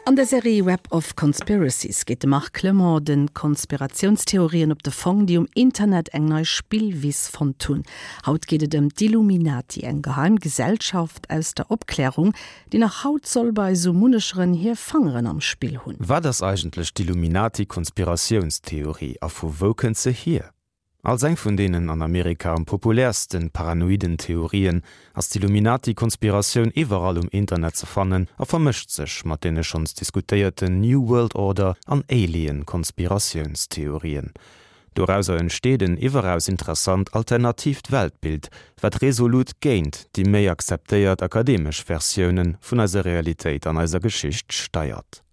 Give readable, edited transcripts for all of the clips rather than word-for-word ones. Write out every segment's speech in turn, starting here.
An der Serie Web of Conspiracies geet de Marc Clement de Konspiratiounstheorien op de Fong, déi um Internet eng nei Spillwiss fonnt hunn. Haut geet et ëm d'Illuminati, eng geheim Gesellschaft aus der Opklärung, déi nach haut soll bei sou munnecheren hir Fangeren am Spill hunn. Wat ass eigentlech d'Illuminati-Konspiratiounstheorie a vu wou kënnt se hier? Als eng vun deenen an Amerika am populäersten paranoiden Theorien ass d'Illuminati-Konspiratioun iwwerall um Internet ze fannen a vermëscht sech mat deene schonns diskutéierten New World Order an Alien-Konspiratiounstheorien. Dorauser entsteet en iwweraus interessant alternatiivt Weltbild, wat resolut géint déi méi akzeptéiert akademesch Versioune vun eiser Realitéit an eiser Geschicht steiert.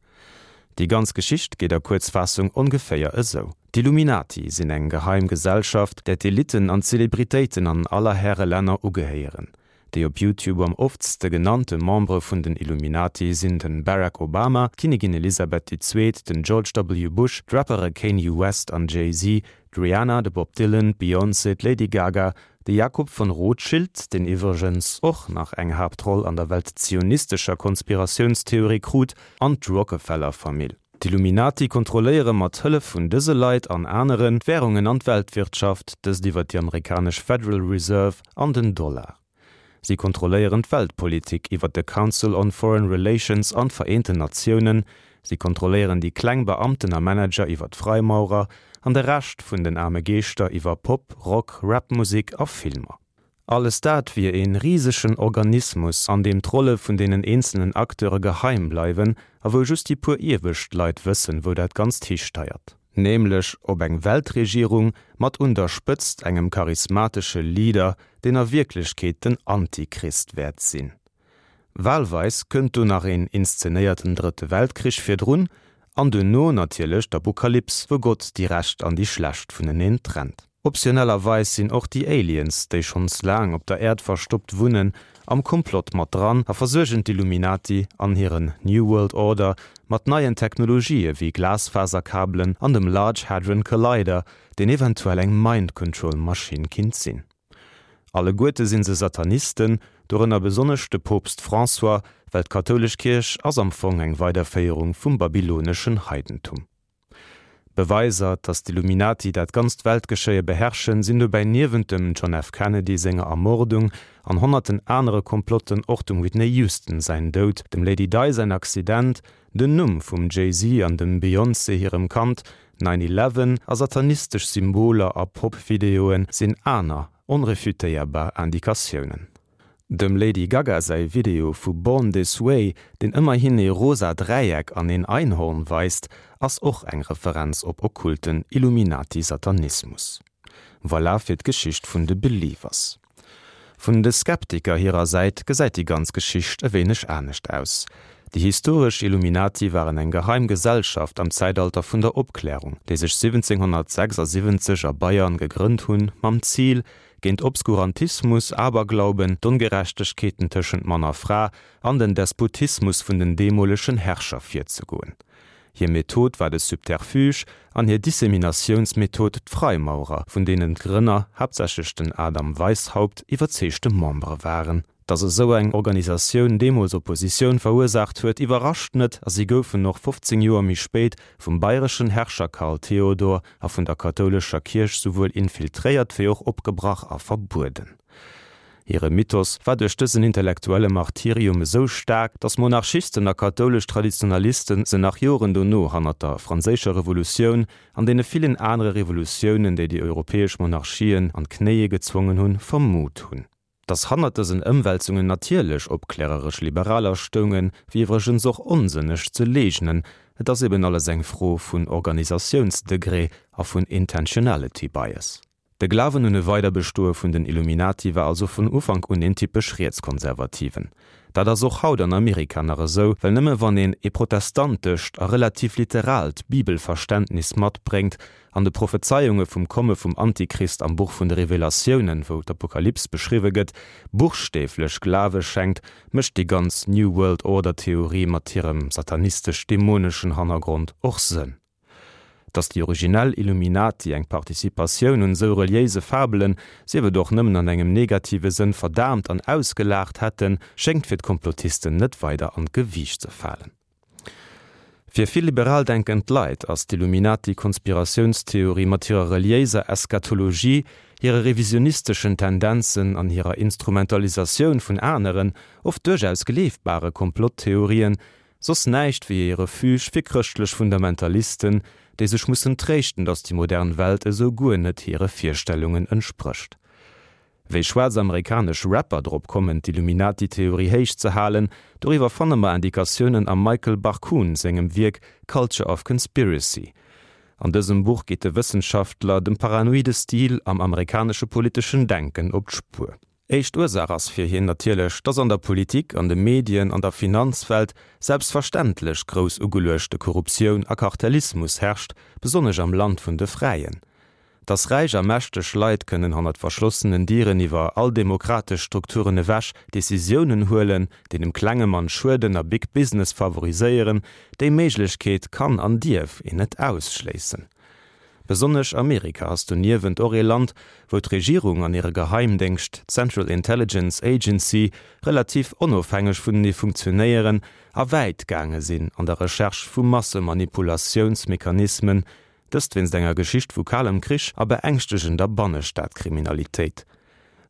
Déi ganz Geschicht geet a Kuerzfaassung ongeféier esou, D'Illuminati sinn eng geheim Gesellschaft, där d'Elitten an d'Zelebritéiten an aller Häre Länner ugehéieren. Déi op YouTube am oftste genannte Membere vun den Illuminati sinn de Barack Obama, d'Kinnigin Elisabeth déi Zweet, den George W. Bush, d'Rappere Kanye West an Jay-Z, d'Rihanna, de Bob Dylan, d'Beyoncé, d'Lady Gaga, De Jakob von Rothschild, deen iwwregens och nach eng Haaptroll an der weltzionistescher Konspiratiounstheorie krut, an d'Rockefeller-Famill. D'Illuminati kontrolléiere mat Hëllef vun dëse Leit an aneren d'Wärungen an d'Weltwirtschaft, dëst iwwer déi amerikanesch Federal Reserve an den Dollar. Si kontrolléieren d'Weltpolitik iwwer de Council on Foreign Relations an d'Vereenten Natiounen. Si kontrolléieren déi kleng Beamten a Manager iwwer d'Freimaurer an de Rescht vun den aarme Geeschter iwwer Pop-, Rock-, Rap-Musek a Filmer. Alles dat wier ee risegen Organismus, an deem d'Rolle vun deenen eenzelnen Acteure geheim bleiwen a wou just déi puer iewescht Leit wëssen, wou dat Ganzt histeiert. Nämlech op eng Weltregierung mat un der Spëtzt engem charismatesche Leader, deen a Wierklechkeet den Antichrist wäert sinn. Wahlweis kënnt do nach een inszenéierten Drëtte Weltkrich virdrun an duerno natierlech d'Apokalyps, wou Gott déi Recht an déi Schlecht vuneneen trennt. Optionellerweis sinn och déi Aliens, déi schonns laang op der Äerd verstoppt wunnen, am Komplott mat dran a versuergen d'Illuminati an hiren New World Order mat neien Technologië wéi Glasfaserkabelen an dem Large Hadron Collider, deen eventuell eng Mind Control Maschinn kinnt sinn. Alleguerte sinn se Satanisten, dorënner besonnesch de Poopst François, well d'kathoulesch Kierch ass am Fong eng Weiderféierung vum babyloneschen Heidentum. Beweiser, datt d'Illuminati dat ganzt Weltgeschéie beherrschen, sinn dobäi niewent dem John F. Kennedy senger Ermordung an honnerten anere Komplotten och dem Whitney Houston säin Doud, dem Lady Di säin Accident, den Numm vum Jay-Z an dem Beyoncé hirem Kand, Nine Eleven a satanistesch Symboler a Pop-Videoe sinn aner onrefutéierbar Indikatiounen. Dem Lady Gaga säi Video vu Born This Way, deen ëmmerhin ee rosa Dräieck an een Einhorn weist, ass och eng Referenz op okkulten Illuminati-Satanismus. Voilà fir d'Geschicht vun de Believers. Vun de Skeptiker hirer Säit gesäit déi ganz Geschicht e wéineg anescht aus. Déi historesch Illuminati waren eng geheim Gesellschaft am Zäitalter vun der Opklärung, déi sech 1776 a Bayern gegrënnt hunn, mam Zil, géint Obskurantismus, Aberglauben, d'Ongerechtegkeeten tëschent Mann a Fra an den Despotismus vun den deemolegen Herrscher virzegoen. Hir Method war de Subterfuge an hir Disseminatiounsmethod d'Freimaurer, vun deenen d'Grënner, haaptsächlech den Adam Weishaupt, iwwerzeegte Membere waren. Datt esou eng Organisatioun deemools Oppositioun verursaacht huet, iwwerrascht net a si goufen och 15 Joer méi spéit vum bayreschen Herrscher Karl Theodor a vun der kathoulescher Kierch souwuel infiltréiert wéi och opgebrach a verbueden. Hire Mythos war duerch dësen intellektuelle Martyrium esou staark, datt Monarchisten a kathoulesch Traditionalisten se nach Joren dono hannert der Franséischer Revolutioun an deene villen anere Revolutiounen, déi déi europäesch Monarchien an d'Knéie gezwongen hunn, vermut hunn. Datt hannert dësen Ëmwälzungen natierlech opkläreresch Liberaler stoungen, wier iwwregens och onsënneg ze leegnen, et ass eben alles eng Fro vun Organisatiounsdegré a vun Intentionality Bias. De Glawen un e Weiderbestoe vun den Illuminati war also vun Ufank un een typesch rietskonservativen. Dat ass och haut an Amerika nach esou, well nëmme wann een ee protestantescht a relativ literaalt Bibelverständnis matbréngt an de Prophezeiunge vum Komme vum Antichrist am Buch vun de Revelatiounen, wou d'Apokalyps beschriwwe gëtt, buchstäflech Glawe schenkt, mécht déi ganz New World Order Theorie mat hirem satanistesch-dämoneschen Hannergrond och Sënn. Datt déi originell Illuminati eng Participatioun un esou reliéise Fabelen, sief et och nëmmen an engem negative Sënn, verdaamt an ausgelaacht hätten, schéngt fir d'Komplotisten net weider an d'Gewiicht ze falen. Fir vill liberal denkend Leit ass d'Illuminati-Konspiratiounstheorie mat hirer reliéiser Eschatologie, hire revisionisteschen Tendenzen an hirer Instrumentalisatioun vun aneren, oft duerchaus gleefbare Komplotttheorien, soss näischt wéi ee Refuge fir chrëschtlech Fundamentalisten, déi sech mussen tréischten, datt déi modern Welt esou guer net hire Virstellungen entsprécht. Wéi schwaarz amerikanesch Rapper drop kommen d'Illuminati-Theorie héich ze halen, doriwwer fanne mer Indikatiounen am Michael Barkun sengem Wierk Culture of Conspiracy. An dësem Buch geet de Wëssenschaftler dem paranoide Stil am amerikanesche politeschen Denken op d'Spuer. Éischt Ursaach ass fir hien natierlech, dass an der Politik, an de Medien, an der Finanzwelt selbstverständlech grouss ugeluechte Korruptioun a Kartellismus herrscht, besonnesch am Land vun de Fräien. Dass räich a mächteg Leit kënnen hannert verschlossenen Dieren iwwer all demokratesch Strukturen ewech Decisiounen huelen, déi dem klenge Mann schueden a Big Business favoriséieren, déi Méiglechkeet kann an dierf een net ausschléissen. Besonnesch Amerika ass doniewent och ee Land, wou d'Regierung an hire Geheimdéngscht, d'Central Intelligence Agency, relativ onofhängeg vunenee funktionéieren a wäit gaange sinn an der Recherche vu Massemanipulatiounsmechanismen, Dëst wéinst enger Geschicht vu kalem Krich a beängschtegender Bannestadkriminalitéit.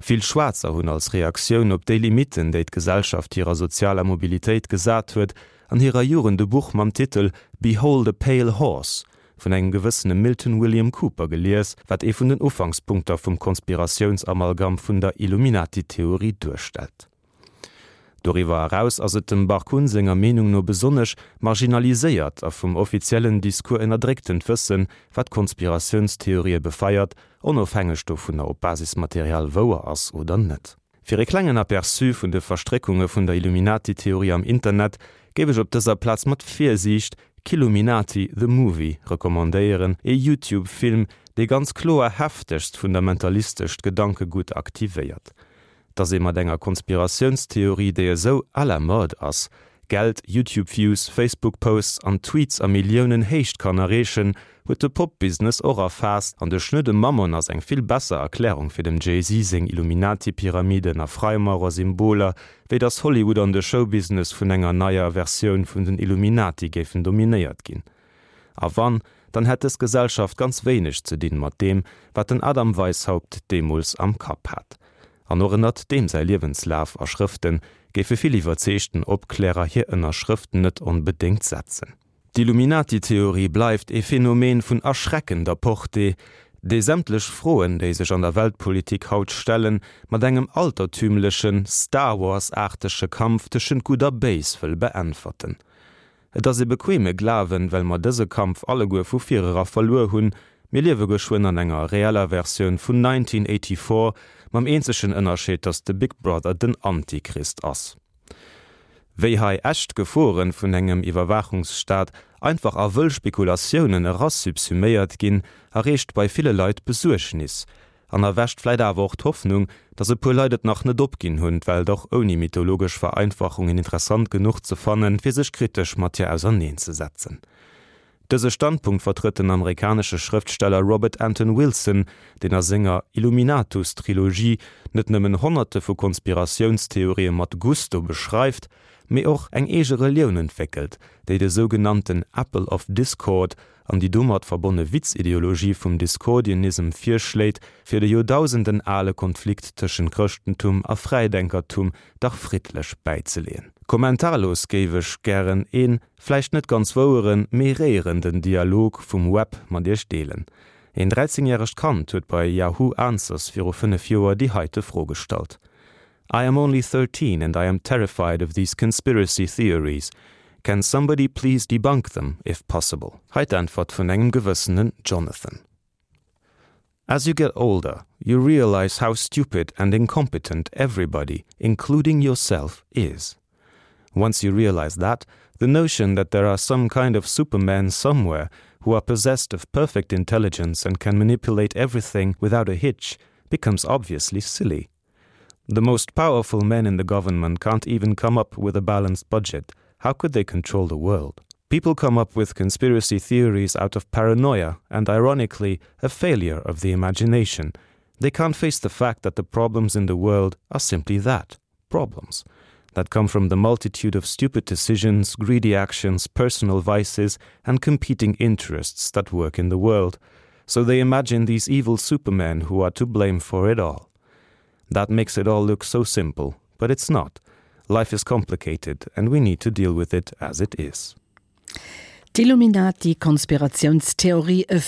Vill Schwaarzer hunn als Reaktioun op déi Limitten, déi d'Gesellschaft hirer sozialer Mobilitéit gesat huet, an hirer Jugend e Buch mam Titel Behold a Pale Horse vun engem gewëssene Milton William Cooper gelies, wat ee vun den Ufankspunkter vum Konspiratiounsamalgam vun der Illuminati-Theorie duerstellt. Doriwwer eraus ass et dem Barkun senger Meenung no besonnesch marginaliséiert a vum offiziellen Discours ënnerdrécktent Wëssen, wat Konspiratiounstheorië befeiert, onofhängeg dovunner ob Basismaterial wouer ass oder net. Fir e klengen Aperçu vun de Verstréckunge vun der Illuminati-Theorie am Internet géif ech op dëser Plaz mat Virsiicht Killuminati, The Movie recommandéieren, ee YouTube-Film, dee ganz kloer heftegst fundamentalistescht Gedankegutt aktivéiert. Dass ee mat enger Konspiratiounstheorie, déi esou à la mode ass, Geld, YouTube-Views, Facebook-Posts an Tweets a Milliounen Héicht kann erreechen, huet de Pop-Business och erfaasst an de schnöde Mammon ass eng vill besser Erklärung fir dem Jay-Z seng Illuminati-Pyramiden a Freimaurer-Symboler, wéi dass Hollywood an de Showbusiness vun enger neier Versioun vun den Illuminati géifen dominéiert ginn. A wann, dann hätt dës Gesellschaft ganz wéineg ze dinn mat deem, wat den Adam Weishaupt deemools am Kapp hat. An och ënnert deem säi Liewenslaf a Schrëfte géife vill iwwerzeegten Opklärer hir Ënnerschrëft net onbedéngt setzen. D'Illuminati-Theorie bleift ee Phänomen vun erschreckender Portée, dee sämtlech Froen, déi sech an der Weltpolitik haut stellen, mat engem altertümlechen, Star Wars-aartege Kampf tëschent Gutt a Béis wëll beäntwerten. Et ass e bequeme Glawen, well mer dëse Kampf alleguer vu virera verluer hunn. Mir liewe geschwënn an enger reeller Versioun vun 1984, mam eenzegen Ënnerscheed, datt de Big Brother den Antichrist ass. Wéi hei echt Geforen vun engem Iwwerwaachungsstaat einfach a wëll Spekulatiounen erasubsuméiert ginn, erreegt bei ville Leit Besuergnis. An erwächt vläit awer och d'Hoffnung, datt e puer Leit et nach net opginn hunn, d'Welt och ouni mythologesch Vereinfachungen interessant genuch ze fannen, fir sech kritesch mat hir auserneenzesetzen. Dëse Standpunkt vertrëtt den amerikanesche Schrëftsteller Robert Anton Wilson, deen a senger Illuminatus-Trilogie net nëmmen Honnerte vu Konspiratiounstheorië mat Gusto beschreift, mee och eng eege Relioun entwéckelt, déi de sougenannten Apple of Discord an déi domat verbonne Witzideologie vum Discordianism virschléit, fir de joerdausenden ale Konflikt tëschent Chrëschtentum a Fräidenkertum dach friddlech bäizeleeën. Kommentarlos géif ech gären een, vläicht net ganz woueren, mee réierenden Dialog vum Web mat iech deelen. Een 13 järegt Kand huet bei Yahoo Answers viru 5 Joer déi heite Fro gestallt. I am only 13 and I am terrified of these conspiracy theories. Can somebody please debunk them if possible? Hei d'Äntwert vun engem gewëssenen Jonathan. As you get older, you realize how stupid and incompetent everybody, including yourself, is. Once you realize that, the notion that there are some kind of supermen somewhere who are possessed of perfect intelligence and can manipulate everything without a hitch becomes obviously silly. The most powerful men in the government can't even come up with a balanced budget. How could they control the world? People come up with conspiracy theories out of paranoia and, ironically, a failure of the imagination. They can't face the fact that the problems in the world are simply that problems. that come from the multitude of stupid decisions, greedy actions, personal vices and competing interests that work in the world. So they imagine these evil supermen who are to blame for it all. That makes it all look so simple, but it's not. Life is complicated and we need to deal with it as it is. D'Illuminati-Konspiratiounstheorie, e.